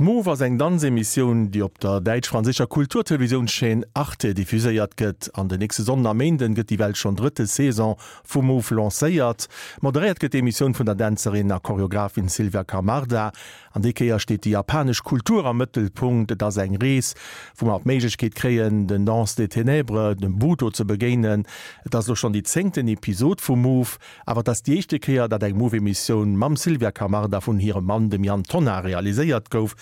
Move ass eng Danzemissioun, déi op der däitsch-franséischer Kulturtelevisiounschaîne Arte diffuséiert gëtt. An den nächste Sonnden a Méinden gëtt déi well schonn drëtte Saison vu Move lancéiert. Moderéiert gëtt d'Emissioun vun der Dänzerin a Choreographin Sylvia Camarda. An déi Kéier steet déi japanesch Kultur am Mëttelpunkt. Et ass eng Rees, wou mer d'Méiglechkeet kréien, den Danse des Ténèbres, dem Buto ze begéinen. Et ass elo schonn déi zéngten Episod vu Move, awer et ass déi éischte Kéier, datt eng Move-Emissioun mam Sylvia Camarda vun hirem Mann, dem Yann Tonnar, realiséiert gouf.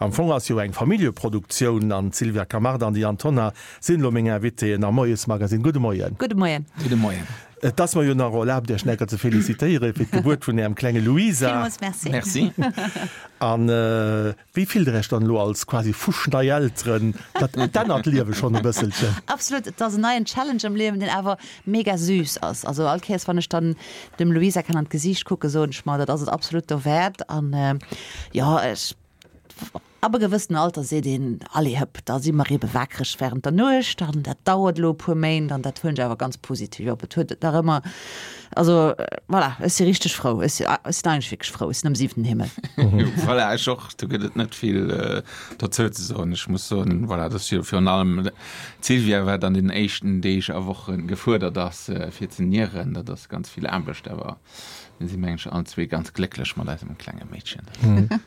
Am Fong ass jo eng Familljeproduktioun an d'Sylvia Camarda an de Yann Tonnar sinn elo meng Invitéen am Moiesmagasinn. Gudde Moien. Gudde Moien. Gudde Moien. Et ass mer jo nach erlaabt, Iech necker ze felicitéiere fir d'Gebuert vun Ärem klenge Luisa. Villmools Merci. Merci. An wéi fillt Der Iech dann elo als quasi fuschnei Elteren? Dat ännert d'Liewe schonn e bësselchen. Absolut. Et ass en neien Challenge am Liewen, deen awer mega süß ass. Also all Kéiers, wann ech dann dem Luisa kann an d'Gesiicht kucken, soen ech mer, dat ass et absolut dowäert. An jo, ech. Ab e gewëssenen Alter seet een, Allez hëpp, da si mer ebe wakereg wärend der Nuecht an dat dauert elo e puer Méint an dat huelen ech awer ganz positiv op. Et huet nach ëmmer, also voilà, ech si richteg frou, ech si ech sinn eigentlech wierklech frou, ech sinn am siwenten Himmel. Voilà, ech och, do gëtt et net vill dozou ze soen. Ech muss soen, voilà, dat ass jo virun allem d'Sylvia, wat an den éischten Deeg a Woche gefuerdert ass, fir ze nieren. Dat ass ganz vill Aarbecht, awer Mir si mengen ech allen zwee ganz glécklech mat eisem klenge Meedchen.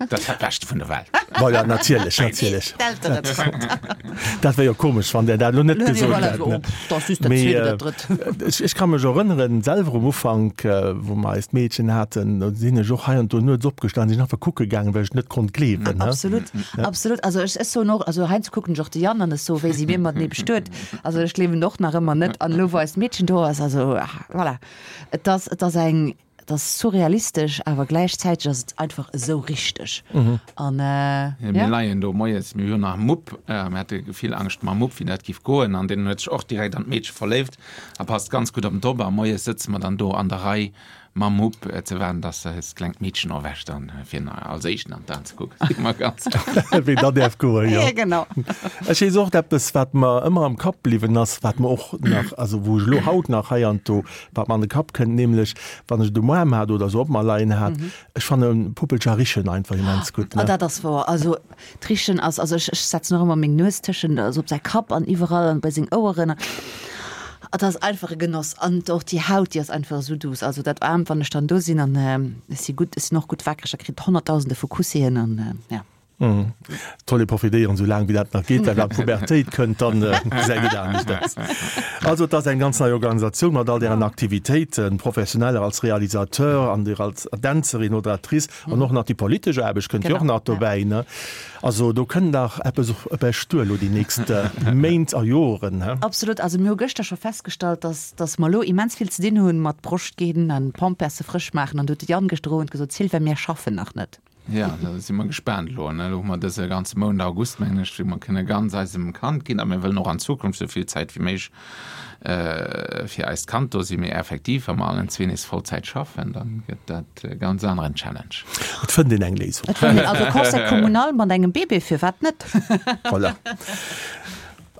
Dat ass dat Beschte vun der Welt. Voilà, natierlech, natierlech. Dat wär jo komesch, wann Der dat elo net gesot hätt. Mee ech ka mech erënneren, selwer um Ufank, wou mer eist Meedchen haten, do sinn ech och hei an do nuets opgestanen, sinn einfach kucke gaangen, well ech et net konnt gleewen. Absolut, absolut. Also ech soen och, also heiansdo kucken ech och de Yann an ech soen, wéi si mir matenee bestuet. Also ech gleewen och nach ëmmer net. An elo, wou eist Meedchen do ass, also voilà. Et ass, et ass eng, et ass surrealistesch, awer gläichzäiteg ass et einfach esou richteg. An ja. Mir leien do moies, mir hunn nach Mupp, mir hate vill Angscht mam Mupp, wéi dat giff goen, an deen huet sech och direkt an d'Meedche verléift a passt ganz gutt op en op. A moies sëtze mer dann do an der Rei mam Mupp ze waarden, dass eist klengt Meedchen erwächt an fir en als éischten an d'Aen ze kucken. Si mer ganz. Wéi dat däerf goen, jo. Ja, genau. Ech weess och eppes, wat mer ëmmer am Kapp bliwwen ass, wat mer och nach, also wou ech elo haut nach heiansdo, wat mer an de Kapp kënnt, nämlech wann ech et um Aarm hat oder esou op mer leien hat, ech fanne Puppelcher richen einfach immens gutt, ne? Ah, dat ass wouer. Also d'Richen ass, also ech, ech setzen och ëmmer meng Nues tëschent, also op säi Kapp an iwwerall an bei seng Oueren. Et ass einfach e Genoss. An och déi Haut, déi ass einfach esou douce. Also dat Aarmt, wann ech dann do sinn an ech si gutt, ech sinn och gutt wakereg, da kritt Honnertdausende vu Kussien an ja. Et soll ee profitéieren, esou laang wéi dat nach geet, well wann d'Pubertéit kënnt, dann gesäit et anescht aus. Also et ass eng ganz nei Organisatioun mat all dären Aktivitéiten, professioneller als Realisateur an dir als Dänzerin oder Actrice an och nach déi politesch Aarbecht kënnt jo och nach dobäi, ne? Also do kënnt nach eppes op Iech duer elo déi nächst Méint a Joren, he? Absolut. Also mir hu gëschter scho festgestallt, dass dass mer elo immens vill ze dinn hunn mat Broscht ginn an Pamperse frësch maachen an do huet de Yann gëschter Owend gesot, Sylvain, mir schaffen nach net. Jo, da si mer gespaant elo. Elo hu mer dëse ganze Mount August, mengen ech, wou mer kënne ganz eisem Kand ginn. A mir wëllen och an Zukunft esou vill Zäit wéi méiglech fir eist Kand do sinn. Mee effektiv, wa mer allen zwee nees Vollzäit schaffen, da gëtt dat e ganz aneren Challenge. Et fënnt een eng Léisung. Et fënnt een. Also Conseil communal mat engem Bébé, firwat net? Voilà.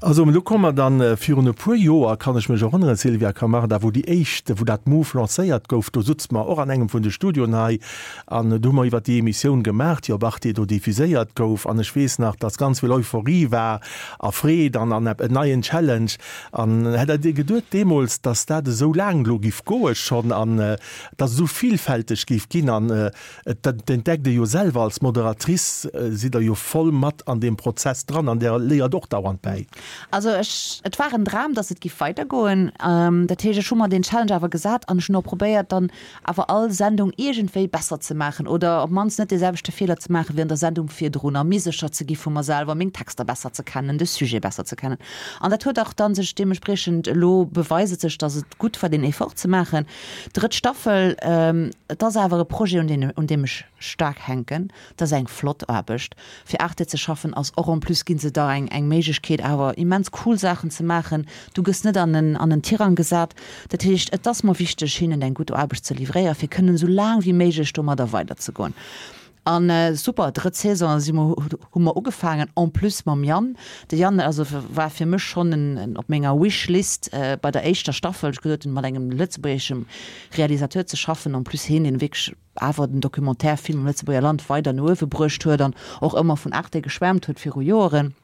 Also elo komme mer dann, virun e puer Joer, kann ech mech erënneren, Sylvia Camarda, wou déi éischt, wou dat Move lancéiert gouf, do sutze mer och an engem vun de Studioen hei an do hu mer iwwert déi Emissioun gemaach, déi op Arte do diffuséiert gouf. An ech weess nach, dass ganz vill Euphorie war a Freed an an en neien Challenge. An hätt Der geduet deemools, dass dat esou laang elo giff goe schonn an dass et esou villfälteg géif ginn an Et entdeckt ee jo selwer, als Moderatrice sidd Der jo voll mat an deem Prozess dran an Der léiert och dauernd bäi. Also ech, et war en Dram, datt et giff weidergoen. Dat heescht, ech hu mer deen Challenge awer gesat an ech hunn och probéiert, dann awer all Sendung iergendwéi besser ze maachen oder op d'mannst net dee selwechte Feeler ze maachen wéi an der Sendung virdrun a méi sécher ze gi vu mer selwer, meng Texter besser ze kennen, de Sujet besser ze kennen. An dat huet och dann sech deementspriechend elo beweist et sech, datt et gutt war, deen Effort ze maachen. Drëtt Staffel, et ass awer e Projet, un deen, un deem ech staark hänken. Et ass eng flott Aarbecht. Fir Arte ze schaffen ass och en plus gi se der eng, eng Méiglechkeet awer immens cool Saachen ze maachen. Du gëss net an en, an en Tirang gesat. Dat heescht, et ass mer wichteg, hinnen eng gutt Aarbecht ze livréieren, fir kënnen esou laang wéi méiglech domadder weiderzegoen. An super, drëtt Saison si mer, hu mer ugefaangen, en plus mam Yann. De Yann also war fir mech schonn en op menger Wish-List bei der éischter Staffel. Ech gesot hunn, mat engem lëtzebuergeschem Realisateur ze schaffen, en plus hien, deen wierklech awer den Documentaire-Film am Lëtzebuerger Land weider no uewe bruecht huet an och ëmmer vun Arte geschwärmt huet viru Joeren,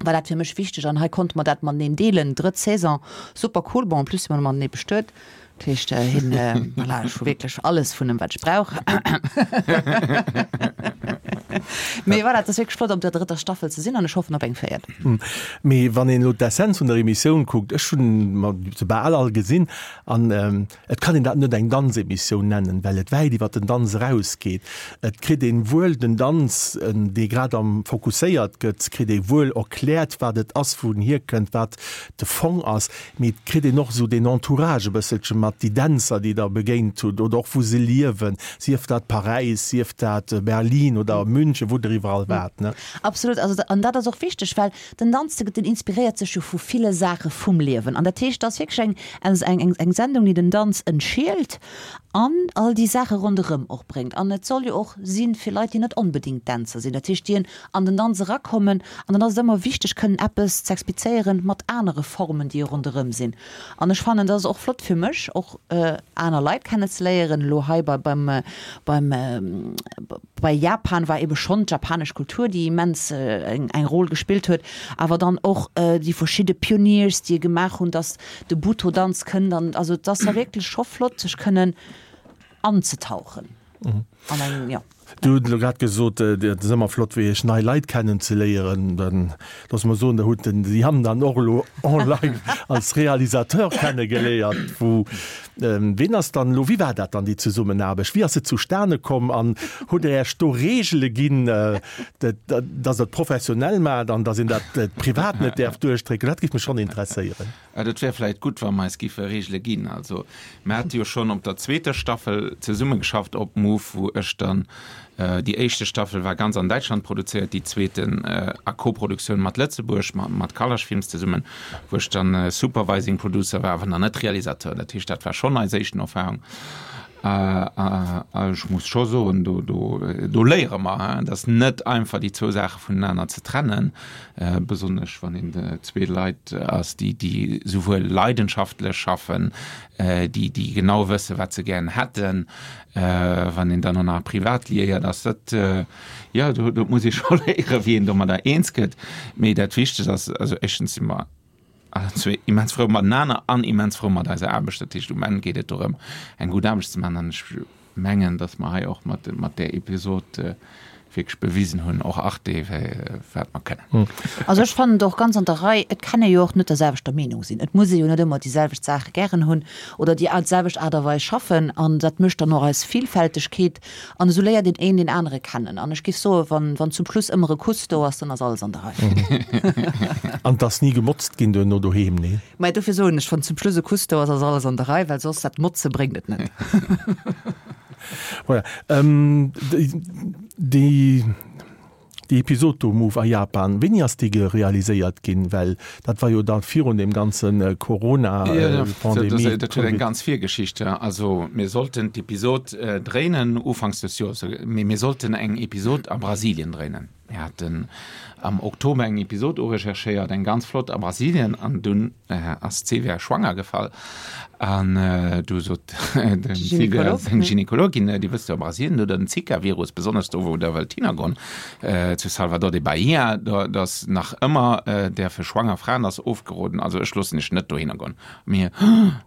war dat fir mech wichteg an hei konnte mer dat mateneen deelen. Drëtt Saison, super cool. Bon, en plus si mer matenee bestuet, dat heescht hien, voilà, ech hu wierklech alles vun em wat ech brauch. Mee voilà, et ass wierklech flott op der drëtter Staffel ze sinn an ech hoffen op eng véiert. Mee wann een elo d'Essenz vun der Emissioun kuckt, ech hunn mer se bal all gesinn an Et kann een dat net eng Danzemissioun nennen, well et wäit iwwer den Danz erausgeet. Et kritt een wuel den Danz, dee grad am fokusséiert gëtt, kritt ee wuel erkläert, wat et ass, wou en hierkënnt, wat de Fong ass, mee et kritt een och esou deen Entourage e bësselche mat, déi Dänzer, déi Der begéint hutt oder och wou se liewen, sief dat Paräis, sief dat Berlin oder München, wou Der iwwerall waart, ne? Absolut, also an dat ass och wichteg, well Den Danz, den inspiréiert sech jo vu ville Saache vum Liewen. An dat heescht, et ass wierklech eng, eng Sendung, déi den Danz entschielt an all déi Saache ronderëm och bréngt. An et soll jo och si fir Leit, déi net onbedéngt Dänzer sinn. Dat heescht, déi an den Danz erakommen. An dann ass et ëmmer wichteg, kënnen eppes z'explizéieren mat anere Formen, déi ronderëm sinn. An ech fannen, dat ass och flott fir mech, och aner Leit kennezeléieren. Elo hei bei, beim, beim, Bei Japan war ebe schonn d'japanesch Kultur, déi immens eng Rôle gespillt huet, awer dann och déi verschidde Pioneers, déi e gemaach hunn, datt de Butoh-Danz kënnt an also et ass da wierklech scho flott, sech kënnen anzetauchen an eng, jo. Du hutt elo grad gesot, et ass ëmmer flott fir iech nei Leit kennenzeléieren. Dann loosse mer soen, der hutt den Yann dann och elo en live als Realisateur kennegeléiert, wou Ween ass dann elo, wéi war dat dann déi Zesummenaarbecht, wéi ass se zustane komm an hutt Der Iech do Reegele ginn, datt Der et professionell maacht an datt een dat privat net däerf duerchdrécken? Dat géif mech schonn interesséieren. Et wär vläicht gutt, wa mer eis giffe Reegele ginn. Also mer hate jo schonn op der zweeter Staffel zesummegeschafft op Move, wou ech dann Déi éischte Staffel war ganz an Däitschland produzéiert, déi zweeten a Koproduktioun mat Lëtzebuerg, mat Kalasch Films zesummen, wou ech dann Supervising Producer war, awer nach net Realisateur. Dat heescht, dat war schonn eis éischten Erfahrung. A ech muss scho soen, do, do, do léiere mer, et ass net einfach, déi zwou Saache vonenaner ze trennen, besonnesch wann een zwee Leit ass, déi, déi souwuel leidenschaftlech schaffen, déi, déi genau wëssen, wat se gären hätten, Wann een dann och nach privat liéiert ass, dat, jo, do, do muss ee scho léieren, wéi een domadder eens gëtt. Mee dat Wichtegst ass, also éischtens si mer allen zwee immens frou matenaner an immens frou mat eiser Aarbecht. Dat heescht, um Enn geet et dorëm, eng gutt Aarbecht ze maachen. An ech mengen, datt mer hei och mat, mat där Episod wierklech bewisen hunn, och Arte, wat mer kënnen. Also ech fannen et och ganz an der Rei. Et kann ee jo och net der selwechter Meenung sinn. Et muss ee jo net ëmmer déi selwecht Saache gären hunn oder déi selwecht Aart a Weis schaffen. An dat mécht dann och eis Villfältegkeet. An esou léiert een een deen anere kennen. An ech géif soen, wann, wann zum Schluss ëmmer e Kuss do ass, dann ass alles an der Rei. An et ass ni gemotzt ginn duerno doheem, nee? Mä dofir soen ech, wann zum Schluss e Kuss do ass, ass alles an der Rei, well soss dat Motze bréngt et net. Voilà. Ähm, déi, déi Episod do, Move a Japan, wéini ass déi gerealiséiert ginn? Well dat war jo da virun deem ganze Corona-Pandemie. Dat huet eng ganz Virgeschicht. Also mir sollten d'Episod dréinen ufanks des Joers, mee mir sollten eng Episod a Brasilien dréinen. Mir haten am Oktober eng Episod urecherchéiert, eng ganz flott a Brasilien, an dunn ass d'Sylvia schwanger gefall. An du sot dem Sylvia seng Gynekologin, Dir wësst jo, a Brasilien, do den Zika-Virus, besonnesch do wou der wëllt hinnergoen, zu Salvador de Bahia, do ass nach ëmmer däerfe schwanger Fraen ass ofgeroden, also ech loossen iech net dohinner goen. Mir,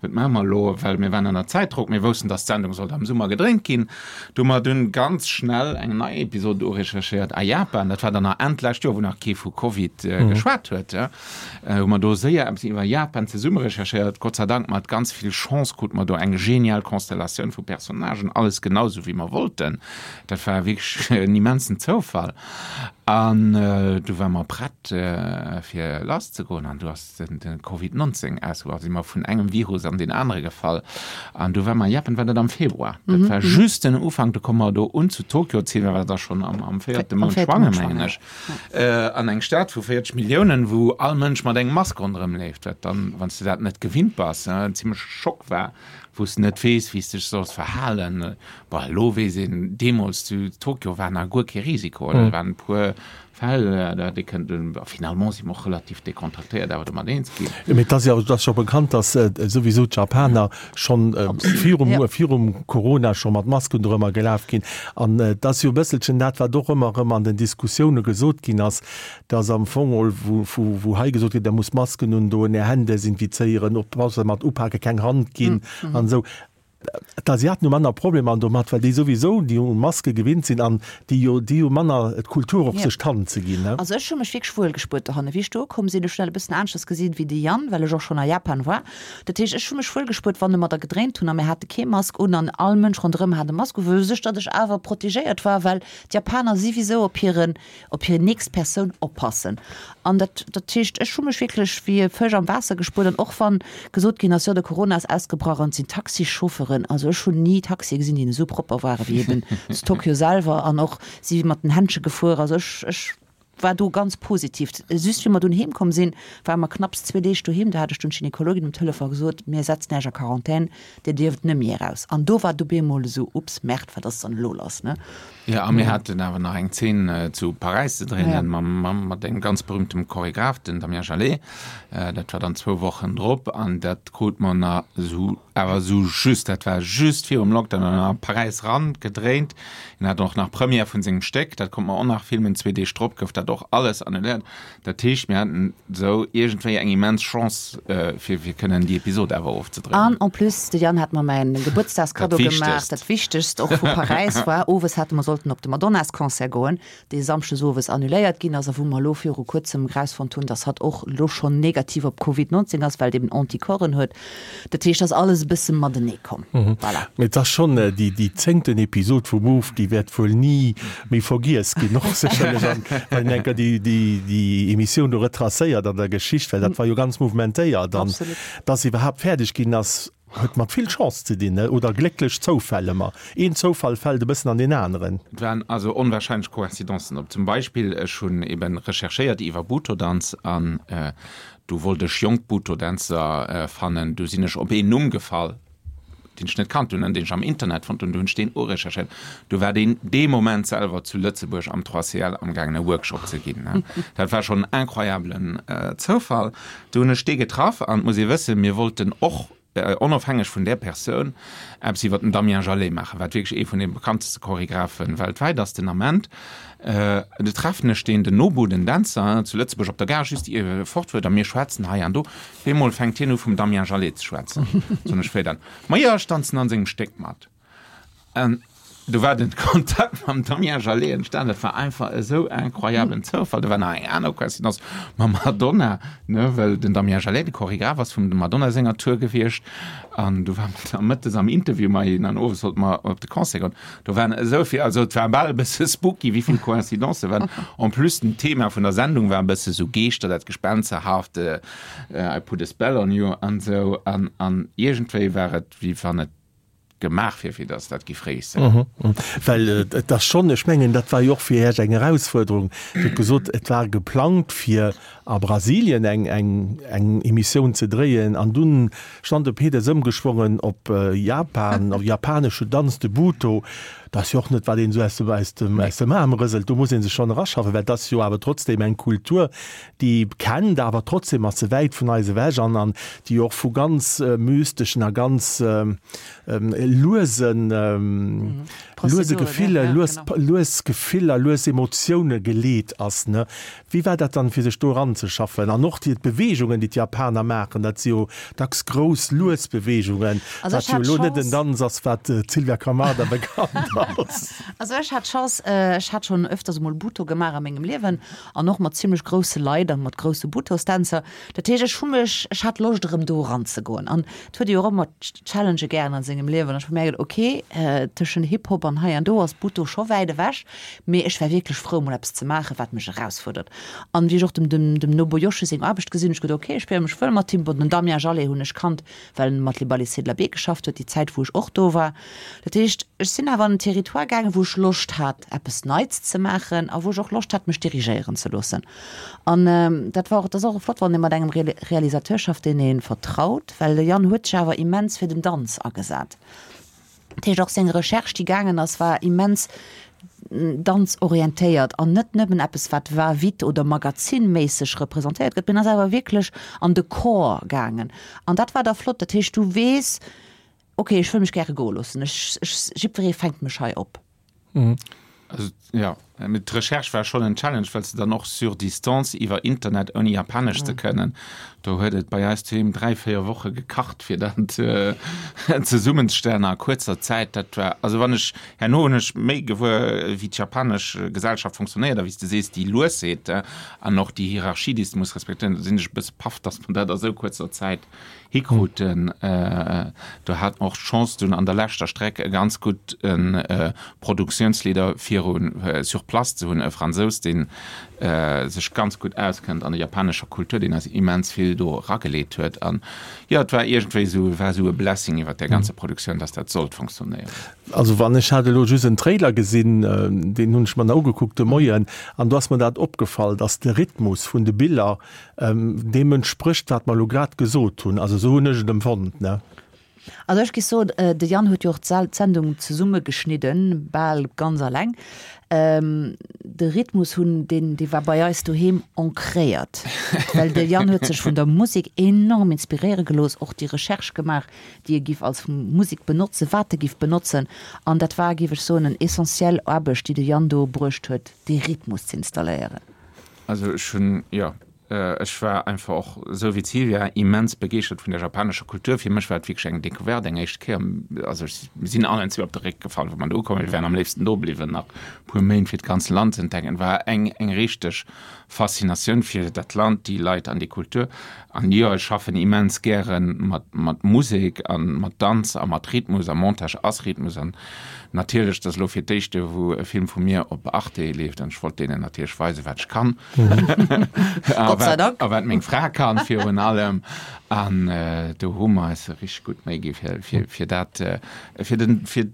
Wat maache mer elo? Well mir waren ënner Zäitdrock, mir woussten, dass d'Sendung sollt am Summer gedréint ginn. Du hu mer dunn ganz schnell eng nei Episod urecherchéiert a Japan. Dat war dann nach Enn d'lescht Joer, wou nach kee vu Covid geschwat huet. Hu mer do séier eppes iwwer Japan zesumme recherchéiert. Gott sei Dank mat ganz vill Chance krute mer do eng genial Konstellatioun vu Personnagen, alles genau esou wéi mer wollten. Dat war wierklech en immensen Zoufall. An du ware mer prett fir lasszegoen an du ass de Covid 19 ausgebrach, si mer vun engem Virus an deen anere gefall. An du war mer Japan, war dat am Februar. Dat war just den Ufank, do komme mer do un zu Tokio, d'Sylvia war da schonn am, am véierte Mount schwanger, mengen ech, an eng Stad vu 40 Milliounen, wou all Mënsch mat engem Mask ronderëm leeft, wat dann, wann s de dat net gewinnt bass, en zimmleche Schock war. Wou s de net weess, wéi s de dech solls verhalen. Bon, elo weess een, deemools zu Tokio war nach guer kee Risiko, oder? Et waren e puer Fäll, da hätt ee kënnten, a finalement si mer och relativ dekontraktéiert awer domat eens ginn. Mee et ass jo, et ass scho bekannt, datt souwisou d'Japaner schonn virum, virum Corona scho mat Masken dorëmmer gelaf ginn. An et ass jo e bësselchen dat, wat och ëmmer erëm an den Diskussioune gesot ginn ass, dass am Fong ol, wou hei gesot gëtt, Der musst Masken undoen, Är Hänn desinfizéieren, oppasse mat upaken, keng Hand ginn an esou. D'Asiaten hu manner Problemer domat, well déi souwisou déi u Maske gewinnt sinn an déi jo, déi hu manner d'Kultur och sech d'Hand ze ginn. Also ech hu mech wierklech wuel gespuert dohanne. Wéi ech do ukomm sinn, ech hunn dat e bëssen aneschters gesinn wéi de Yann, well ech och schonn a Japan war. Dat heescht, ech hu mech wuel gespuert, wann e mer da gedréint hunn a mir hate kee Mask un an all Mënsch ronderëm hat e Mask u, wou sech datt ech awer protegéiert war, well d'Japaner siwisou op hiren op hir nächst Persoun oppassen. An dat, dat heescht, ech hu mech wierklech wéi e Fësch am Waasser gespuert. An och wann gesot ginn ass, jo de Corona ass ausgebrach an et sinn Taxichauffeuren, also ech hunn ni Taxie gesinn, déi esou propper ware wéi eben zu Tokio selwer an och si mat den Händsche gefuer. Also ech, ech war do ganz positiv. Just wéi mer dunn heem komm sinn, ware mer knapps zwee Deeg doheem, do hat ech dunn d'Gynekologin um Telefon gesot, mir setzen Iech a Quarantän, Dir dierft net méi eraus. An do war et op eemol esou, Ups, Merde, wat ass dann elo lass, ne? Jo, a mir haten awer nach eng Zeen zu Paräis ze dréinen mam, mat engem ganz berühmtem Choregraph, den Damien Jalet. Dat war dann zwou Wochen drop an dat krut mer nach esou, awer esou just, dat war just virum Lockdown an a Paräis ran gedréint. Hien hat och nach Première vun sengem Stéck, dat konnt mer och nach filmen. Zwee Deeg drop gouf dat och alles annuléiert. Dat heescht, mir haten esou iergendwéi eng immens Chance, fir fir kënnen déi Episod awer ofzedréinen. An en plus, de Yann hat mer mäin Gebuertsdagskaddo gemaach, dat Wichtegst och vu Paräis war, owes hate mer sollten op de Madonnas-Concert goen, dee samschdes owes annuléiert ginn ass a wou mer elo viru kuerzem erausfonnt hunn, dass hatt och elo schonn negativ op Covid 19 ass, well et eben Anticorpsen huet. Dat heescht, ass alles e bësse matenee komm. Voilà. Mee et ass schonn déi, déi zéngten Episod vu Move, déi wäert wuel ni méi vergiess ginn, och sécherlech an, wann een enker déi, déi, déi Emissioun do retracéiert an der Geschicht, well dat war jo ganz mouvementéiert. An dass se iwwerhaapt fäerdeg ginn ass, huet mat vill Chance ze dinn, oder glécklech Zoufäll ëmmer. Een Zoufall fält e bëssen an deen aneren. Et waren also onwahrscheinlech Coïncidencen op. Zum Beispill, ech hunn eben recherchéiert iwwer Butoh-Danz an Du wollt ech jonk Butoh-Dänzer fannen. Du sinn ech op een Numm gefall, deen ech net kannt hunn an deen ech am Internet fonnt hunn. Du hunn ech deen urecherchéiert. Du war deen dee Moment selwer zu Lëtzebuerg am 3CL amgaangen e Workshop ze ginn. Dat war schonn en incroyablen Zoufall. Du hunn ech dee getraff an et muss ee wëssen, mir wollten och, onofhängeg vun där Persoun, eppes iwwer den Damien Jalet maachen, wat wierklech ee vun de bekannteste Choregraphe weltwäit ass den Ament. Du treffen ech deen, den Nobu, den Dänzer, zu Lëtzebuerg op der Gare, just ier e fort fuert, a mir schwätzen hei an do. Op eemol fänkt hien u vum Damien Jalet ze schwätzen. Soen ech, Wéi dann? Ma jo, ech danzen an sengem Stéck mat. An do war den Kontakt mam Damien Jalet entstan. Dat war einfach esou incroyablen Zoufall. Do war nach eng aner Coïncidence mam Madonna, ne, well den Damien Jalet de Choregraph ass vum dem Madonna senger Tour gewiescht. An du war mer da mëttes am Interview mat hinnen an owes sollte mer op de Concert goen. Do waren esou vill, also et war bal e bësse spooky, wéi vill Coïncidencë waren. En plus den Thema vun der Sendung war e bësse sou Geeschter, dat Gespensterhaft, I put a spell on you an esou. An, an iergendwéi war et, wéi wann et gemaach wier, fir datt dat géif réussir. Well et ass schonn, ech mengen, dat war jo och fir Iech eng Erausfuerderung. Dir hutt gesot, et war geplangt, fir a Brasilien eng, eng, eng Emissioun ze dréien an dunn stand de Pedes ëmgeschwongen op Japan, op japanesche Danz, de Butoh. Dat ass jo och net, wat een esou aus dem, aus dem, aus dem Aarm rëselt. Do muss ee sech schonn eraschaffen, well et ass jo awer trotzdem eng Kultur, déi kennt, awer trotzdem ass se wäit vun eis ewech an an déi och vu ganz mysteschen a ganz luesen luese Gefiller, lues lues Gefiller, lues Emotioune geleet ass, ne? Wéi war dat dann, fir sech do eranzeschaffen? An och déi d'Beweegungen, déi d'Japaner maachen, dat si jo dacks grouss, lues Beweegungen, wat jo elo net en Danz ass, wat d'Sylvia Camarda bekannt ass. Also ech hat d'Chance, ech hat schonn öfters emol Butoh gemaach a mengem Liewen An och mat zimlech grousse Leit an mat grousse Butohstänzer. Dat heescht, ech hu mech, ech hat Loscht erëm do eranzegoen. An et huet ee jo och ëmmer Challengë gären an sengem Liewen. An ech hu mierkt, ok, tëschent Hip-Hop an hei an do ass Butoh scho wäit ewech, mee ech war wierklech frou mol eppes ze maachen, wat mech erausfuerdert. An wéi ech och dem, dem, dem Nobuyoshi seng Aarbecht gesinn hunn, ech geduet, ok, ech spiere mech wuel mat him. Bon, den Damien Jalet hunn ech kannt, well en mat Les Ballets de la Baie geschafft huet, déi Zäit wou ech och do war. Dat heescht, ech sinn awer an den. Territoire gaangen, wou ech Loscht hat, eppes Neits ze maachen a wou ech och Loscht hat, mech dirigéieren ze loossen. An dat war och, dat ass och flott, wann ee mat engem Realisateur schafft, deen ee vertraut, well de Yann huet sech awer immens fir den Danz agesat. Dat heescht, och seng Recherche, déi gaangen ass, war immens danzorientéiert an net nëmmen eppes, wat va-vite oder magazinméisseg representéiert gëtt, mee en ass awer wierklech an de Corps gaangen. An dat war da flott. Dat heescht, du weess, ok, ech wëll mech gäre goe loossen, ech, ech, jiddweree fänkt mech hei op. Also, ja, mee d'Recherche war schonn en Challenge, well s de dann och sur distance iwwer Internet, ouni Japanesch ze kënnen, do huet et bei eis doheem 3, 4 Woche gekacht, fir dat zesummenzestellen a kuerzer Zäit. Dat war, also wann ech, herno hunn ech méi gewuer, wéi d'japanesch Gesellschaft funktionéiert a wéi s de sees, déi Luesheet an och déi Hierarchie, déi s de muss respektéieren, do sinn ech e bësse paff, dass mer dat a sou kuerzer Zäit hikruten. Do hat mer och d'Chance dunn an der leschter Streck e ganz gudde Produktiounsleader viru sur place ze hunn, e Fransous, dee sech ganz gutt auskënnt an der japanescher Kultur, deen eis immens vill do erageleet huet. An jo, et war iergendwéi esou, war esou e Blessing iwwer där ganzer Produktioun, dass dat sollt funktionéieren. Also wann, ech hat elo just en Trailer gesinn, deen hunn ech mer nach ugekuckt de Moien, an do ass mer dat opgefall, dass de Rhythmus vun de Biller Deem entsprécht, wat mer elo grad gesot hunn. Also esou hunn ech et empfonnt, ne? Also ech géif soen, de Yann huet jo och d'Sendung zesummegeschnidden, bal ganz alleng. De Rhythmus hunn, deen, dee war bei eis doheem ancréiert, well de Yann huet sech vun der Musek enorm inspiréiere gelooss, och déi Recherche gemaach, déi e giff als Musek benotzen, wat e giff benotzen. An dat war, géif ech soen, en essentiell Aarbecht, déi de Yann do bruecht huet, dee Rhythmus z'installéieren. Also ech hunn, jo, ech war einfach och, esou wéi d'Sylvia, immens begeeschtert vun der japanescher Kultur. Fir mech war et wierklech eng Decouverte, eng éischt Kéier. Also ech, mir sinn allen zwee op de Réck gefall, wou mer do ukomm. Mir wären am léifsten do bliwwen nach e puer Méint, fir d'ganz Land ze entdecken. Et war eng, eng richteg Faszinatioun fir dat Land, déi Leit an déi Kultur. An jo, ech schaffen immens gäre mat, mat Musek a mat Danz a mat Rhythmus a Montage ass Rhythmus. An natierlech, dat ass elo fir d'éischte wou e Film vu mir op Arte leeft an ech wollt deenen natierlech weisen, wat ech kann. A Gott sei wat, Dank. a wat meng Fra kann virun allem. An do hu mer eis richteg gutt Méi gi fir, fir, fir dat, fir den, fir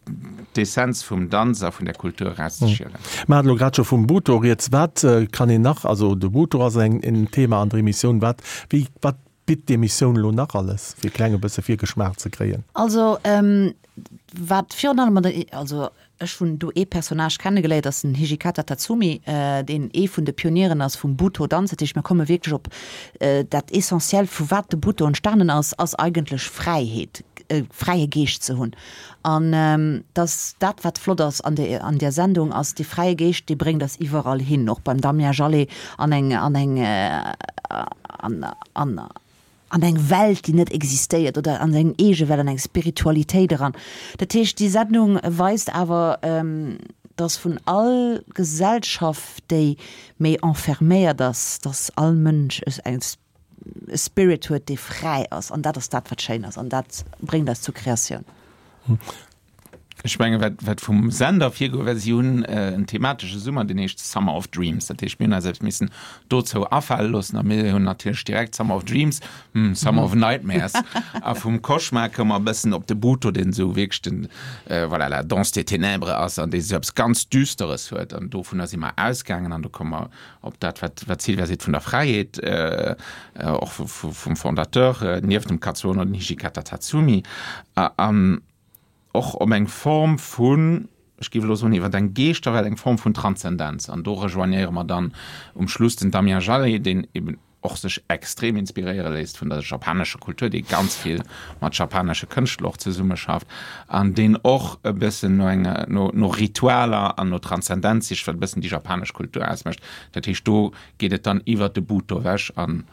d'Essenz vum Danz a vun der Kultur erauszeschielen. Mer haten elo grad scho vum Butoh rieds. Wat kann een nach, also de Butoh ass eng, en Thema an der Emissioun. Wat, wéi, wat bitt d'Emissioun elo nach alles, fir e klenge bësse Virgeschmaach ze kréien? Also wat virun allem an der, also ech hunn do ee Personnage kennegeléiert, ass den Hijikata Tatsumi, deen ee vun de Pionieren ass vum Butoh-Danz. Dat heescht, mir komme wierklech op dat Essentiellt, vu wat de Butoh entstanen ass, ass eigentlech Fräiheet, e fräie Geescht ze hunn. An dass dat, wat flott ass an der an där Sendung, ass dee fräie Geescht, dee bréngt eis iwwerall hin, och beim Damien Jalet an eng an eng an an an eng Welt, déi net existéiert, oder an seng eege Welt, an eng Spiritualitéit eran. Dat heescht, déi Sendung weist awer, dass vun all Gesellschaft, déi méi enferméiert ass, dass all Mënsch eng e Spirit huet, dee fräi ass. An dat ass dat, wat schéin ass. An dat bréngt eis zur Kreatioun. Ech mengen, wat, wat vum Sender virgoe war, si hunn en thematesche Summer, deen heescht Summer of Dreams. Dat heescht, mir hunn eis eppes missen dozou afale loossen a mir hunn natierlech direkt Summer of Dreams, hm, Summer of Nightmares. A vum Cauchemar koum mer e bëssen op de Butoh, deen esou wierklech den, voilà, la danse des ténèbres ass an dee esou eppes ganz Düsteres huet. An dovunner si mer ausgaangen an do koum mer op dat, wat, wat d'Sylvia seet vun der Fräiheet, och vum Fondateur, nieft dem Katsuo no den Hijikata Tatsumi. An och op eng Form vun, ech géif elo soen, iwwer eng Geeschterwelt, eng Form vun Transzendenz. An do rejoignéiere mer dann um Schluss den Damien Jalet, deen eben och sech extrem inspiréiere léisst vun der japanescher Kultur, dee ganz vill mat japanesche Kënschtler och zesummeschafft an deen och e bëssen no enger, no, no Ritualer an no Transzendenz sicht, wat e bëssen déi japanesch Kultur ausmécht. Dat heescht, do geet et dann iwwert de Butoh ewech an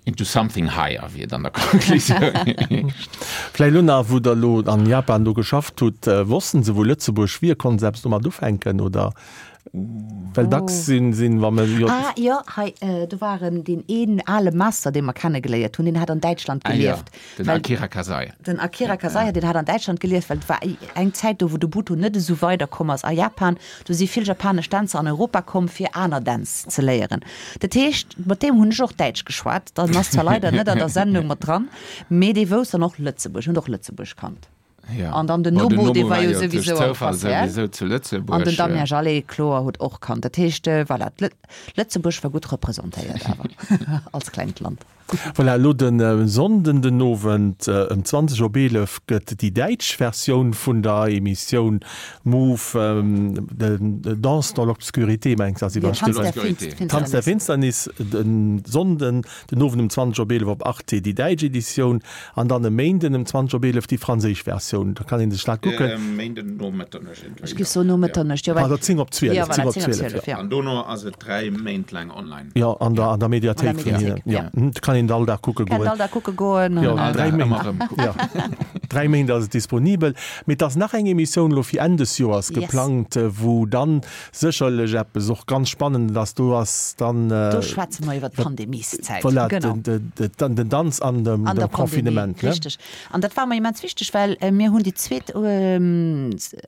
Into something higher, wéi et an der Konklusioun heescht. Vläicht elo nach, wou Der elo an Japan do geschafft hutt, wossten se wou Lëtzebuerg wier? Konnten se eppes domat ufänken oder? Well dacks sinn, sinn, wa mer jo. Ah jo, hei, do war en, deen een ale Master, dee mer kennegeléiert hunn, deen hat an Däitschland gelieft. Ah jo, den Akira Kasai. Den Akira Kasai, deen hat an Däitschland gelieft, well et war eng Zäit do, wou de Butoh net esou weiderkomm ass a Japan. Do si vill japanesch Dänzer an Europa komm, fir aner Dänz ze léieren. Dat heescht, mat deem hunn ech och Däitsch geschwat. Dann ass zwar leider net an der Sendung mat dran, mee dee wousst dann och Lëtzebuerg, huet och Lëtzebuerg kannt. Ja. An dann den Bon, den Nobu, dee Nobu war war jo jo duerch souwisou am Zoufall Concert. souwisou zu An Lëtzebuerg. den Damien Jallet, kloer, huet och kannt. Dat heescht, voilà, Lëtzebuerg war gutt representéiert awer als klengt Land. Voilà, elo de Sonnden den Owend ëm 20 op 11 gëtt déi däitsch Versioun vun der Emissioun Move, Danse dans l'obscurité, mengs ass iwwer Tanz der Finsternis. Tanz der Finsternis, de Sonnden den Owend um 20 op 11 op Arte déi däitsch Editioun an dann e Méinden ëm 20 op 11 déi franséisch Versioun. Da kann ee sech dat kucken. Méinden no Mëtternuecht iergendwéi. Ech géif soen no Mëtternuecht, jo. Pardon, 10 op 12, Jo, voilà, 10 op 10 op 12, 12, jo. jo. An dono ass et 3 Méint laang online. Jo, an der, an der Mediathéik An der vun hinnen. Mediathéik, Jo, ja. do kann een all Dag kucke Kann goen. all Dag kucke goen. Jo, An, dräi All Dag Méint. ëmmer erëm kucken. Jo, dräi Méint ass et disponibel. Mee et ass nach eng Emissioun elo fir Enn des Joers Yes. geplangt, wou dann sécherlech eppes och ganz Spannendes ass. Do ass dann. Do schwätze mer iwwer d'Pandemieszäit. Voilà, Genau. den, den, den, den Danz an dem, An der dem Confinement, Pandemie, ne? richteg. An dat war mer immens wichteg, well mir hunn déi zweet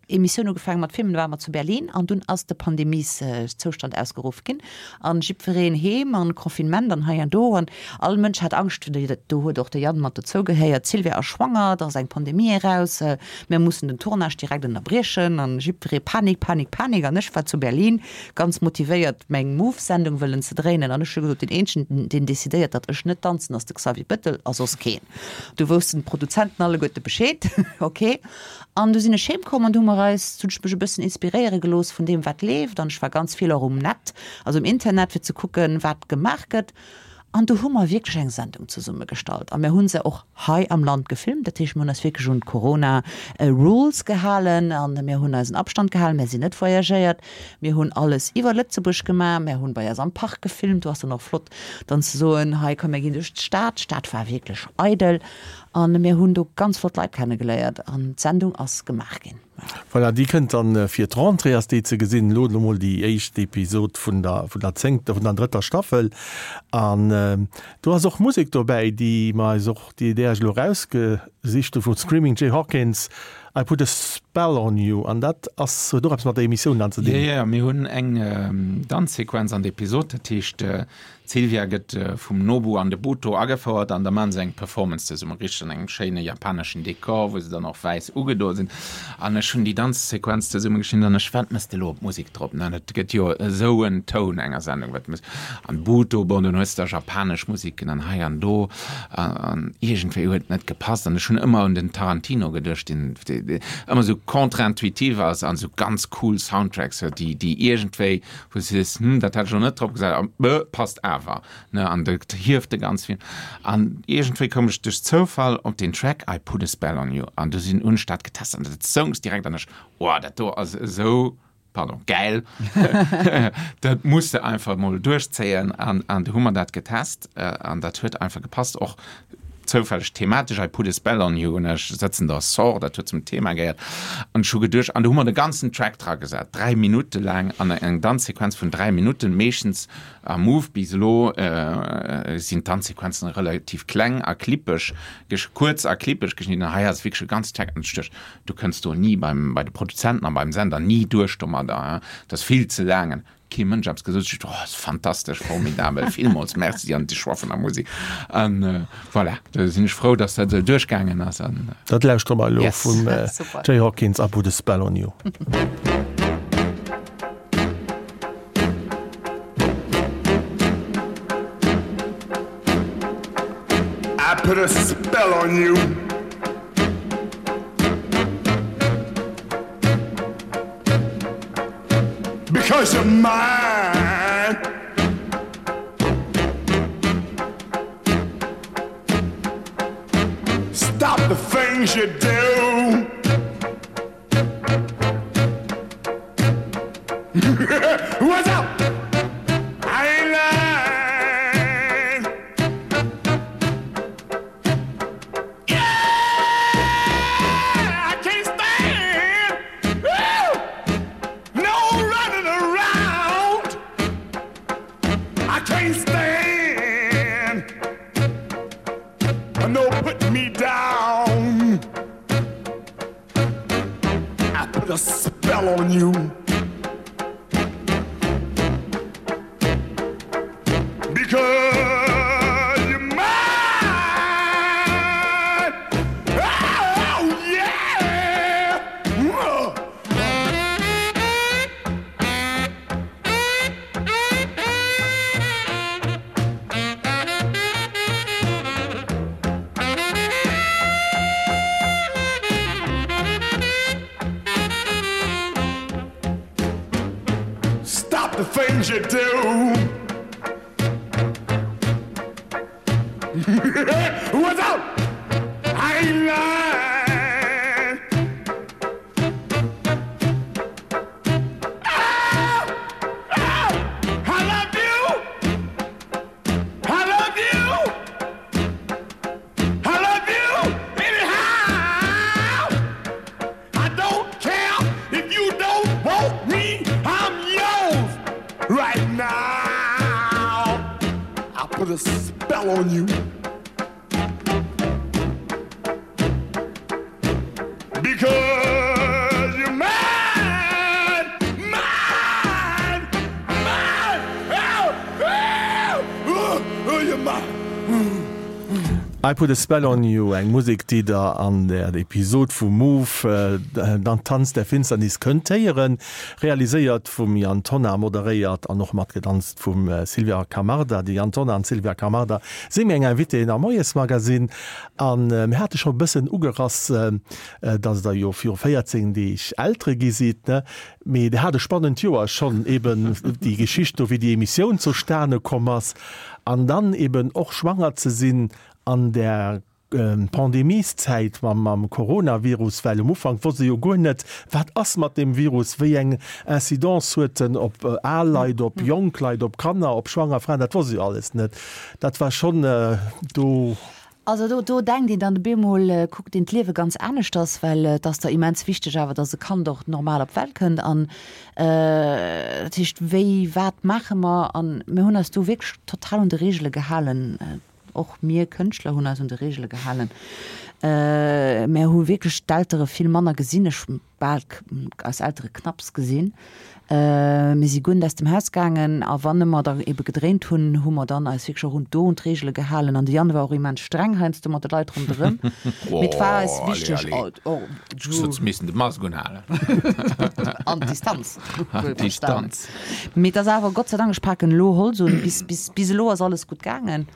Emissioun ugefaange mat filmen, do ware mer zu Berlin an dunn ass de Pandemieszoustand ausgeruff ginn. An jiddwereen heem an Confinement an hei an do an all Mënsch hat Angscht, do huet och de Yann mat dozou gehéiert, d'Sylvia ass schwanger, et ass eng Pandemie eraus, mir mussen den Tournage direkt ënnerbriechen an jiddweree Panik, Panik, Panik an ech war zu Berlin ganz motivéiert meng Move-Sendung wëllen ze dréinen an ech hu gesot, deen eenzegen deen decidéiert datt ech net danzen ass de Xavier Bettel a soss keen. Du woussten d'Produzenten alleguerte Bescheed, ok. An du sinn ech heem komm an du hu mer eis, hunn ech mech e bëssen inspiréiere gelooss vun deem wat leeft an ech war ganz vill och um Net, also um Internet fir ze kucken wat gemaach gëtt an du hu mer wierklech eng Sendung zesumme gestallt a mir hu se och hei am Land gefilmt. Dat heescht mir hunn eis wierklech un d'Corona Rules gehalen an mir hunn eisen Abstand gehalen, mir sinn net voyagéiert, mir hunn alles iwwer Lëtzebuerg gemaach, mir hunn bei eis am Park gefilmt, do ass dann och flott dann ze soen, hei komm mir ginn duerch d'Stad, d'Stad war wierklech eidel An mir hunn do ganz flott Leit kennegeléiert an d'Sendung ass gemaach ginn. Voilà, déi kënnt dann fir d'Rentrée ass déi ze gesinn. Elo emol déi éischt Episod vun der vun der zéngter, vun der drëtter Staffel. An do ass och Musek dobäi, déi mer eis och, déi där ech elo erausgesicht hu vu Screaming Jay Hawkins, I Put a Spell on You. An dat ass, huet och eppes mat der Emissioun dann ze Jo, dinn. jo, mir hunn eng Danzsequenz an der Episod, dat heescht D'Sylvia gëtt vum Nobu an de Buto agefouert an da maachen se eng Performance zesumme, richteg an engem schéine japaneschen Dekor, wou se dann och wäiss ugedo sinn. An ech hunn déi Danzsequenz zesumme geschnidden an ech, wat mëss de elo op d'Musek drop? Ne, dat gëtt jo esou en Toun enger Sendung, wat mëss an Buto, bon, dunn hues de da japanesch Musiken an hei an do an iergendwéi huet et net gepasst an ech hunn ëmmer un den Tarantino geduecht, deen ëmmer esou contre-intuitiv ass an esou ganz cool Soundtracks huet, déi déi iergendwéi wou s de sees, hm, dat hätt ech elo net drop gesat, a bë, passt awer, ne, an dat hieft de ganz Film. An iergendwéi koum ech duerch Zoufall op deen Track I Put a Spell on You an du sinn, hunn ech dat getest an dat soungs direkt an ech, oh, dat do ass esou, pardon, gäil, dat muss de einfach emol duerchzéien an an du hu mer dat getest an dat huet einfach gepasst, och Zoufälleg thematesch I put a spell on you an ech sëtzen der Sort, dat huet zum Thema gehéiert an ech hu geduecht, an do hu mer de ganzen Track dra gesat, 3 Minutte laang an eng Danzsequenz vun 3 Minutten. Meeschtens am Move bis elo sinn d'Danzsequenzen relativ kleng a klippeg, kuerz a klippeg geschnidden, hei ass wierklech e ganze Track an ech duecht, du kënns do ni beim, bei de Produzenten a beim Sender ni duerch domadder, dat ass vill ze laang. Kee Mënsch eppes gesot, ech oh, ass fantastesch, formidabel, villmools Merci an de Choix vun der Musek. An voilà, do sinn ech frou, dass dat esou duerchgaangen ass. An Dat lauschtere mer elo Yes. vum Super. Jay Hawkins, I Put a Spell on You. I put a spell on you. Because you're mine. Stop the things you do. What's up? I ain't lying. Yeah, I can't stand Woo! no running around. I can't stand no putting me down. I put a spell on you. Because you're mine. Oh, yeah. The things you do. What's up? I ain't lying. Oh, oh, I love you. I love you. I love you anyhow. I don't care if you don't want me. I'm yours right now. I put a spell on you. Because you're mine, mine, mine. Oh, oh, oh, oh, you're mine. I Put a Spell on You, eng Musek, déi der an der Episod vu Move, Dann Tanz der Finsternis kënnt héieren. Realiséiert vum Yann Tonnar, moderéiert an och matgedanzt vum Sylvia Camarda. De Yann Tonnar an d'Sylvia Camarda si meng Invitéen am Moiesmagazine. An mir hate scho e bëssen ugerass, dass Der jo viru 14 Deeg Eltere gi sidd, ne? Mee Der hat e spannend Joer schonn, eben déi Geschicht do, wéi déi Emissioun zustane komm ass an dann eben och schwanger ze sinn an där Pandemieszäit mam Coronavirus, well um Ufank wosst ee jo guer net, wat ass mat deem Virus, wéi eng Incidence huet en op al Leit, op jonk Leit, op Kanner, op schwanger Fraen, dat wosst ee jo alles net. Dat war schonn do. Also do, do denkt een dann op eemol, kuckt een d'Liewe ganz aneschters, well et ass da immens wichteg awer, dass e Kand och normal op d'Welt kënnt an dat heescht, wéi, wat maache mer? An mir hunn eis do wierklech total un de Reegele gehalen. Och mir Kënschtler hunn eis un de Reegele gehalen. Mär hu wierklech d'Eltere vill manner gesinn. Ech hu bal eis Eltere knapps gesinn. Mir si guer net aus dem Haus gaangen. A wann mer da ebe gedréint hunn, hu mer dann eis wierklech och un do un d'Reegele gehalen. An de Yann war och immens streng heiansdo mat de Leit ronderëm. Mee et war eis wichteg. Oh, allez, allez. Ech hu missen de Mask unhalen. An d'Distanz. Distanz. Mee et ass awer, Gott sei Dank, ech paken elo Holz un, bis, bis, bis elo ass alles gutt gaangen.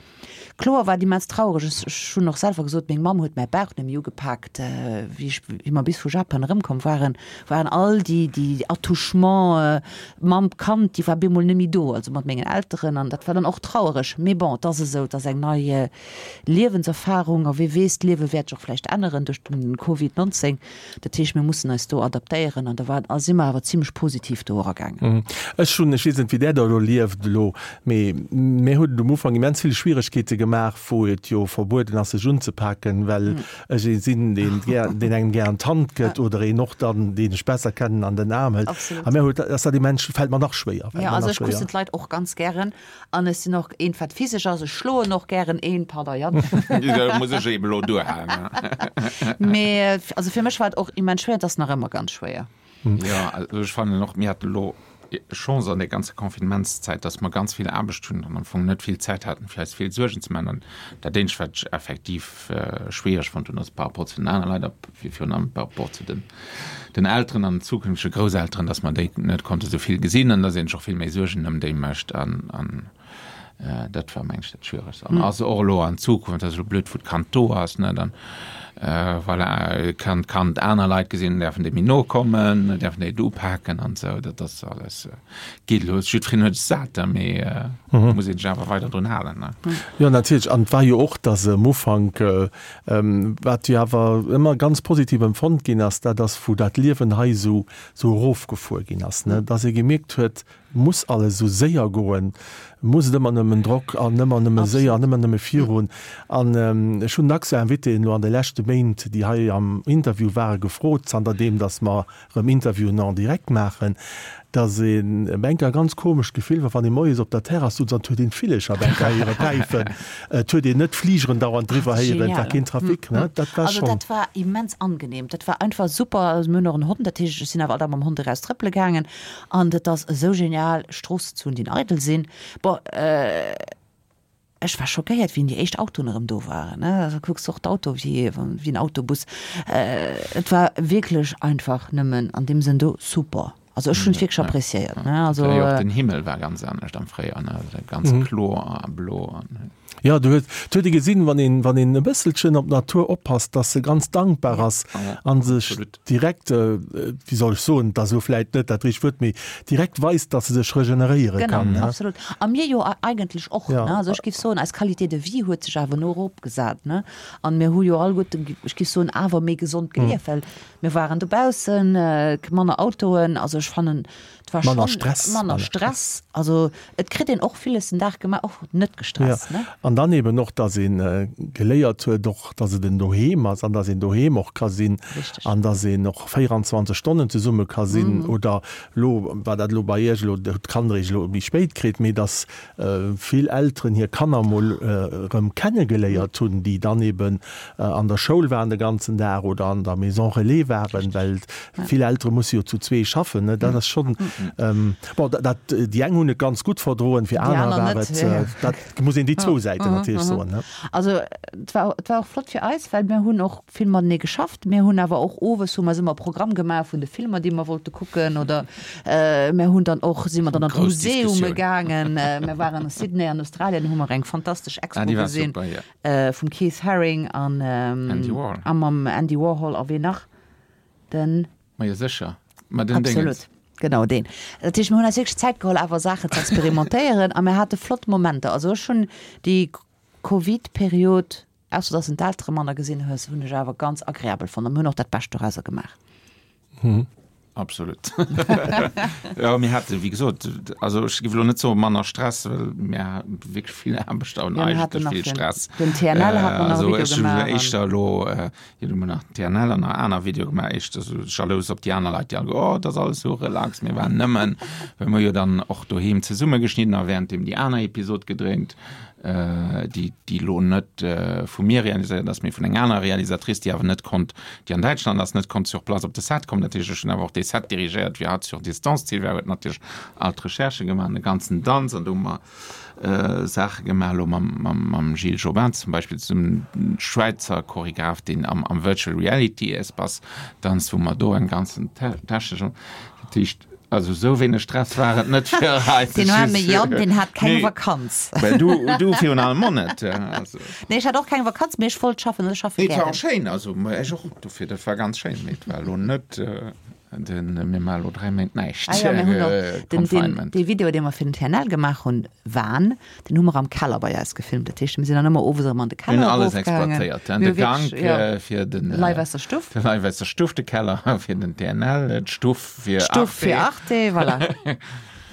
Kloer war et immens traureg. Ech, ech hunn och selwer gesot, meng Mamm huet mäi Bauch net méi ugepaakt. Wéi ech, wéi mer bis vu Japan erëmkomm waren, waren all déi, déi Attouchements Mamm, Kand, déi war bemol net méi do, also mat mengen Elteren an dat war dann och trauereg. Mee bon, et ass esou, et ass eng nei Liewenserfarung a wee weess, d'Liewe wäert sech och vläicht änneren duerch den Covid 19. Dat heescht, mir mussen eis do adaptéieren an da war, a si mer awer zimlech positiv do eragaangen. Ech hunn, ech weess net, wéi Der dat elo lieft elo, mee mir huet et um Ufank immens vill Schwieregkeete gemaach, wou et jo verbueden ass, sech unzepaken, well ech ee sinn, deen gär, deen engem gär an d'Hand gëtt oder een och dann, deen ech besser kennen, an den Aarm hëlt. A mir huet, ass dat immens, fält mer nach schwéier, fält mer Jo, also nach ech kussen schwéier. d'Leit och ganz gären An ech sinn och eent wat physesch ass, ech schloen och gären een, pardon Yann. Da muss ech eben elo duerhalen. Mee also fir mech war et och immens schwéier, et ass nach ëmmer ganz schwéier. Jo, also ech fannen och, mir haten elo Chance an der ganzer Confinementszäit, dass mer ganz vill Aarbecht hunn an am Fong net vill Zäit haten, fir eis vill Suergen ze maachen. An dat eenzegt, wat ech effektiv schwiereg fonnt hunn, ass par rapport zu den anere Leit a virun allem par rapport zu den den Elteren an zukünftege Grousselteren, dass mer déi net konnte sou vill gesinn an dass een sech och vill méi Suergen ëm déi mécht an an dat war meng ech dat Schwieregst. An ass och elo an Zukunft, dat ass elo blöd, wou d'Kand do ass, ne, dann voilà, kann d'Kand aner Leit gesinn, däerfen déi méi no kommen, däerfen déi et upaken an esou, dat ass alles, geet elo, jiddwereen huet es sat, mee muss een sech awer weider drun halen, ne. Jo, natierlech. An et war jo och, dass um Ufank Wat jo awer ëmmer ganz positiv empfonnt ginn ass, dat ass, wou dat Liewen hei esou esou erofgefuer ginn ass, ne, dass ee gemierkt huet, muss alles esou séier goen, muss et ëmmer nëmmen Drock an ëmmer nëmme séier an ëmmer nëmme virun. An ech hunn dacks Invitéen elo an de leschte Méint, déi hei am Interview waren, gefrot, zanter deem datt mer erëm Interviewen en direct maachen, dass een enker e ganz komescht Gefill war, wann ee moies op der Terrass sutz an et huet een d'Villecher op enker héiere päifen, et huet een net d'Fligeren dauernd driwwer héieren, et war keen Trafic, ne, dat war Also schonn. dat war immens angenehm, dat war einfach super. Also mir hunn och en Hond, dat heescht ech sinn awer all Dag mam Hond eraus trëppele gaangen an et ass esou genial Stroossen ze hunn, déi eidel sinn. Bon, Ech war schockéiert, wéi déi éischt Autoen erëm do waren. Da kucks de och d'Auto wéi en Autobus. Et war wierklech einfach nëmmen an deem Sënn do super. Also ech hunn et wierklech appréciéiert. Also jo, och den Himmel war ganz anescht am Fréijoer, ne, ganz kloer a blo. Jo, do huet, huet ee gesinn, wann een, wann een e bësselchen op d'Natur oppasst, dass se ganz dankbar ass a sech direkt, wéi soll ech soen, et ass elo vläit net dat richtegt Wuert, mee direkt weist, dass se sech regeneréiere kann. Genau, absolut. A mir jo eigentlech och, ne? Also ech géif soen, eis Qualité de vie huet sech awer no eropgesat, ne? An mir hu jo alleguerten, ech géif soen, awer méi gesond gelieft, well mir waren dobaussen, manner Autoen, also ech fannen, Et war Manner Stress. Manner Stress. Also et kritt een och villes den Dag gemaach, och net gestresst. Ja. An dann eben och, dass ee geléiert huet och, dass et en Doheem ass an dass een doheem och ka sinn. Richteg. An dass een och 24 Stonnen zesumme ka sinn. Oder elo, war dat elo bei Iech elo, hutt d'Kanner Iech elo méi spéit kritt, mee dass vill Elteren hir Kanner mol erëm kennegeléiert hunn, déi dann eben an der Schoul waren de ganzen Dag oder an der Maison relais waren, well vill Eltere musse jo zu zwee schaffen. Dat ass schonn, bon, dat, déi eng hunn et ganz gutt verdroen, fir aner war et, dat muss een déi zwou Säiten natierlech soen. Also et war, et war och flott fir eis, well mir hunn och vill matenee geschafft. Mir hunn awer och owes hu mer ëmmer Programm gemaach vun de Filmer, déi mer wollte kucken oder mir hunn dann och, si mer dann an d'Museume gaangen. Mir waren a Sydney an Australien, hu mer eng fantastesch Expo gesinn vum Keith Haring an a mam Andy Warhol a ween nach? Den. Ma jo sécher, ma den Déngens. Absolut, genau deen. Dat heescht, mir hunn eis wierklech Zäit geholl awer Saachen ze experimentéieren a mir hate flott Momenter. Also ech hunn déi Covid-Period Ausser dass en d'Eltere manner gesinn hues, hunn ech awer ganz agreabel fonnt a mir hunn och dat Bescht dorauser gemaach. Absolut. Jo, mir hate wéi gesot, also ech géif elo net soe manner Stress, well mir hate wierklech vill Aarbecht an Jo, mir haten eigentlech nach vill den, Stress. den TNL hat mer nach e Also Video ech hu gemaach an. éischter elo, jo du hu mer nach den TNL an nach aner Videoe gemaach, éischter esou jalous op déi aner Leit, déi all, oh, dat ass alles esou relax, mir waren nëmmen, well mir jo dann och doheem zesumme geschnidden a wärenddeem déi aner Episod gedréint. déi déi elo net vu mir realiséiert ass, mee vun enger anerer Realisatrice, déi awer net konnt, déi an Däitschland ass, net konnt sur place op de Set kommen. Dat heescht, ech hunn awer och dee Set dirigéiert, wéi hatt sur distance. D'Sylvia huet natierlech all d'Recherchë gemaach an de ganzen Danz an do hu mer Saache gemaach elo mam mam mam Gilles Jobin zum Beispill zesummen, Schwäizer Choregraph, deen am am Virtual Reality Espace danzt, wou mer do eng ganzen technesch, dat heescht, Also sou wéineg Stress war et net fir eis. Den arme Yann, deen hat keng Vakanz. Well du, du virun allem och net. Also. Nee, ech hat och keng Vakanz, mee ech wollt schaffen, ech schaffe Nee, et war gären. och schéin, also ech och, dofir, dat war ganz schéin, mee et war elo net den mir maache elo 3 Méint näischt Ah jo, mir hunn och den, den, Confinement. dee Video, dee mer fir den TNL gemaach hunn, Van, deen hu mer am Keller bei eis gefilmt. Dat heescht, mir sinn dann ëmmer owes erëm an de Mir Keller hunn alles erofgaangen. exploitéiert, Mir de hu Gank wierklech, jo, fir den Live aus der Stuff. de Live aus der Stuff, de Keller fir den TNL, d'Stuff fir Arte. D'Stuff fir Arte, voilà.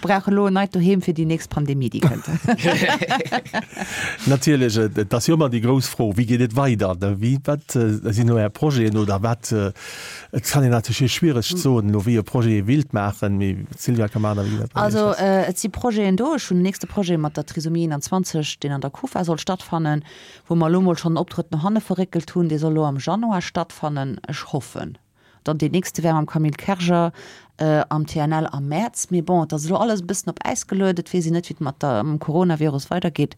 Brauche elo en neit Doheem fir déi nächst Pandemie, déi kënnt. Natierlech, et ass jo ëmmer déi grouss Fro, Wéi geet et weider? Wéi, wat sinn elo Är Projeten oder wat, et kann een natierlech hei schwiereg soen elo, wéi e Projet ee willt maachen, mee d'Sylvia Camarda, wéi dat bei Iech Also ass. et si Projeten do. Ech hunn den nächste Projet mat der Trisomie 21, deen an der Kufa soll stattfannen, wou mer elo mol schonn en Optrëtt no hanne verréckelt hunn. Dee soll elo am Januar stattfannen, ech hoffen. Dann deen nächste wär mam Camille Kerger am TNL am Mäerz. Mee bon, et ass elo alles e bëssen op Äis geluet. Et weess een net, wéi et mat der, mam Coronavirus weidergeet.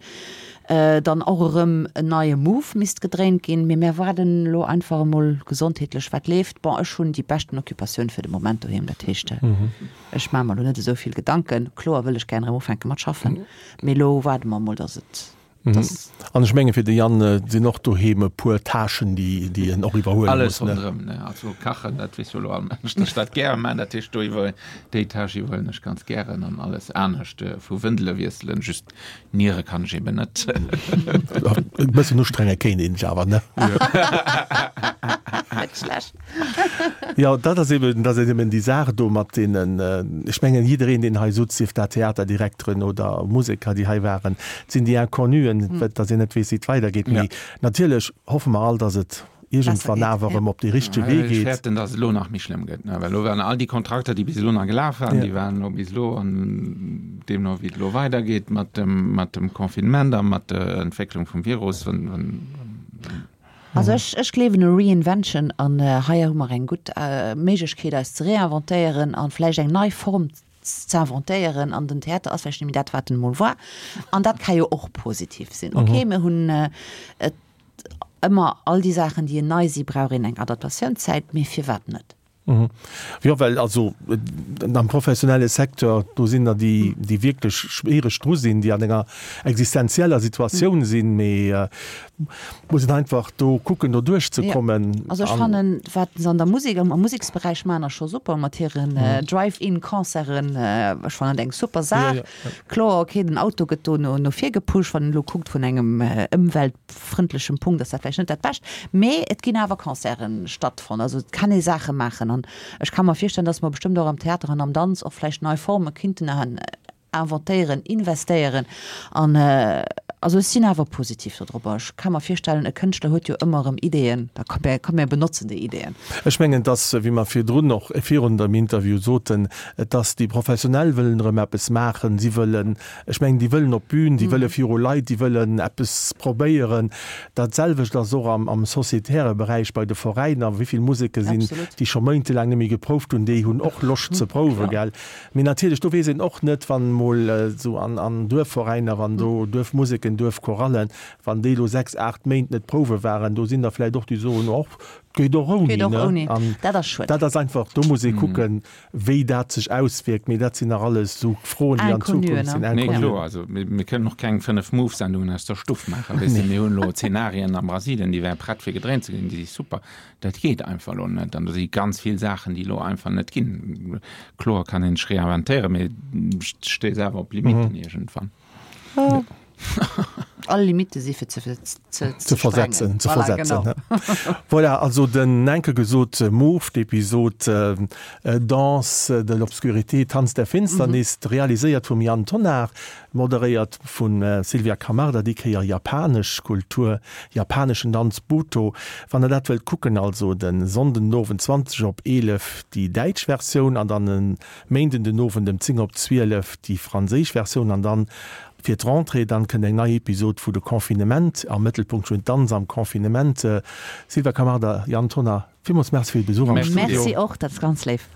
Dann och erëm en neie Move misst gedréint ginn. Mee mär waarden elo einfach emol gesondheetlech, wat leeft. Bon, ech hunn déi beschten Occupatioun fir de Moment doheem. Dat heescht, ech maache mer elo net esou vill Gedanken. Kloer wëll ech gären erëm ufänke mat schaffen, mee elo waarde mer emol, datt et An ech menge fir de Yann sinn och doheem e puer Tâchen, déi en och iwwerhuele muss. Alles ronderëm, ne? Also kachen, dat weess jo elo all Mënsch, datt ech dat gäre maachen. Dat heescht, do iwwer déi Tâche iwwerhuelen ech ganz gären an alles anescht vu Wëndele wiesselen, just niere kann ech eben net. E bëssen ustrenge kéint een sech awer, ne? Net schlecht. Jo, dat ass eben, dat ass eben déi Saach do mat deenen, ech mengen jiddereen, deen hei sutz, sief dat Theaterdirekteren oder Museker, déi hei waren, et sinn déi Inconnuen, dass een net weess, wéi et weidergeet. Mee natierlech hoffe mer all, dass et iergendwann awer erëm op dee richtege Wee Ech geet. fäerten, dass et elo nach méi schlëmm gëtt, well elo waren all déi Kontrakter, déi bis elo nach gelaf waren, déi waren elo bis elo an deemno wéi et elo weidergeet mat dem, mat dem Confinement a mat der Entwécklung vum Virus, wann, wann, Also ech, ech gleewen u Reinvention an hei hu mer eng gutt Méiglechkeet eis ze reinventéieren an vläicht eng nei Form ze inventéieren an den Theater ass vläicht net méi dat wat en emol war an dat ka jo och positiv sinn. Ok, mir hunn et ëmmer all déi Saachen déi nei si brauch een eng Adaptatiounszäit, mee firwat net? Jo, well also am professionelle Secteur, do sinn der, déi, déi wierklech schwiereg dru sinn, déi an enger existenzieller Situatioun sinn, mee muss een einfach do kucken, do duerchzekommen. Jo, also ech fannen, wat se an der Musek, am Museksberäich maachen, ass scho super mat hiren Drive-in-Concerten. Ech fannen dat eng super Saach. Kloer, okay, den Auto gëtt do no no vir gepusht, wann een elo kuckt vun engem ëmweltfrëndlechem Punkt ass dat vläicht net dat Bescht, mee et ginn awer Concerten stattfonnt, also et kann ee Saache maachen an ech ka mer virstellen, dass mer bestëmmt och am Theater an am Danz och vläicht nei Forme kinnten inventéieren, investéieren an also ech sinn awer positiv dodropper. Ech ka mer virstellen, e Kënschtler huet jo ëmmer erëm Ideeën, da komm mir benotzen déi Ideeën. Ech mengen, dass, wéi mer virdrun och virun dem Interview soten, Et ass, déi Professionell wëllen erëm eppes maachen, si wëllen, ech mengen, déi wëllen op d'Bün, déi wëlle viru Leit, déi wëllen eppes probéieren. Dat selwecht ass och am sociétaire Beräich bei de Veräiner. Wéi vill Museke sinn, déi scho méintelaang net méi geprouft hunn, déi hunn och Loscht ze prouwen, gell. Mee natierlech, do weess een och net, wann emol esou an Duerfveräiner, wann do Duerfmuseken, Duerfchorallen, wann déi elo 6, 8 Méint net prouwe waren, do sinn der vläicht och, déi soen, och, 't geet och ouni, ne. An dat ass einfach, do muss ee kucken, Wéi dat sech auswierkt, mee dat sinn nach alles esou Froen, déi an Zukunft sinn. Nee, kloer. Also mir kënnen och keng 5 Move-Sendungen aus der Stuff maachen. Weess de, mir hunn elo Zenarien a Brasilien, déi wäre prett fir gedréint ze ginn, déi si super. Dat geet einfach elo net. An do si ganz vill Saachen, déi elo einfach net ginn. Kloer kann een sech reinventéieren, mee stéisst awer op Limitten iergendwann. All Limitte si fir ze, ze, ze versetzen. Ze voilà, versetzen. Genau. Voilà, also den enke gesot Move, d'Episod äh, Danse de l'obscurité, Tanz der Finsternis, mhm. realiséiert vum Yann Tonnar, moderéiert vun äh, Sylvia Camarda, déi Kéier japanesch Kultur, japaneschen Danz Buto. Wann der dat wëllt kucken, also den Sonnden den Owend 20 op 11 déi däitsch Versioun an dann en Méinden den Owend ëm 10 op 12 déi franséisch Versioun an dann fir d'Rentrée dann kënnt eng nei Episod vu De Confinement, am Mëttelpunkt stoen d'Danz am Confinement. Sylvia Camarda, Yann Tonnar, villmools Merci fir de Besuch am Studio. Merci och, dat ass ganz léif.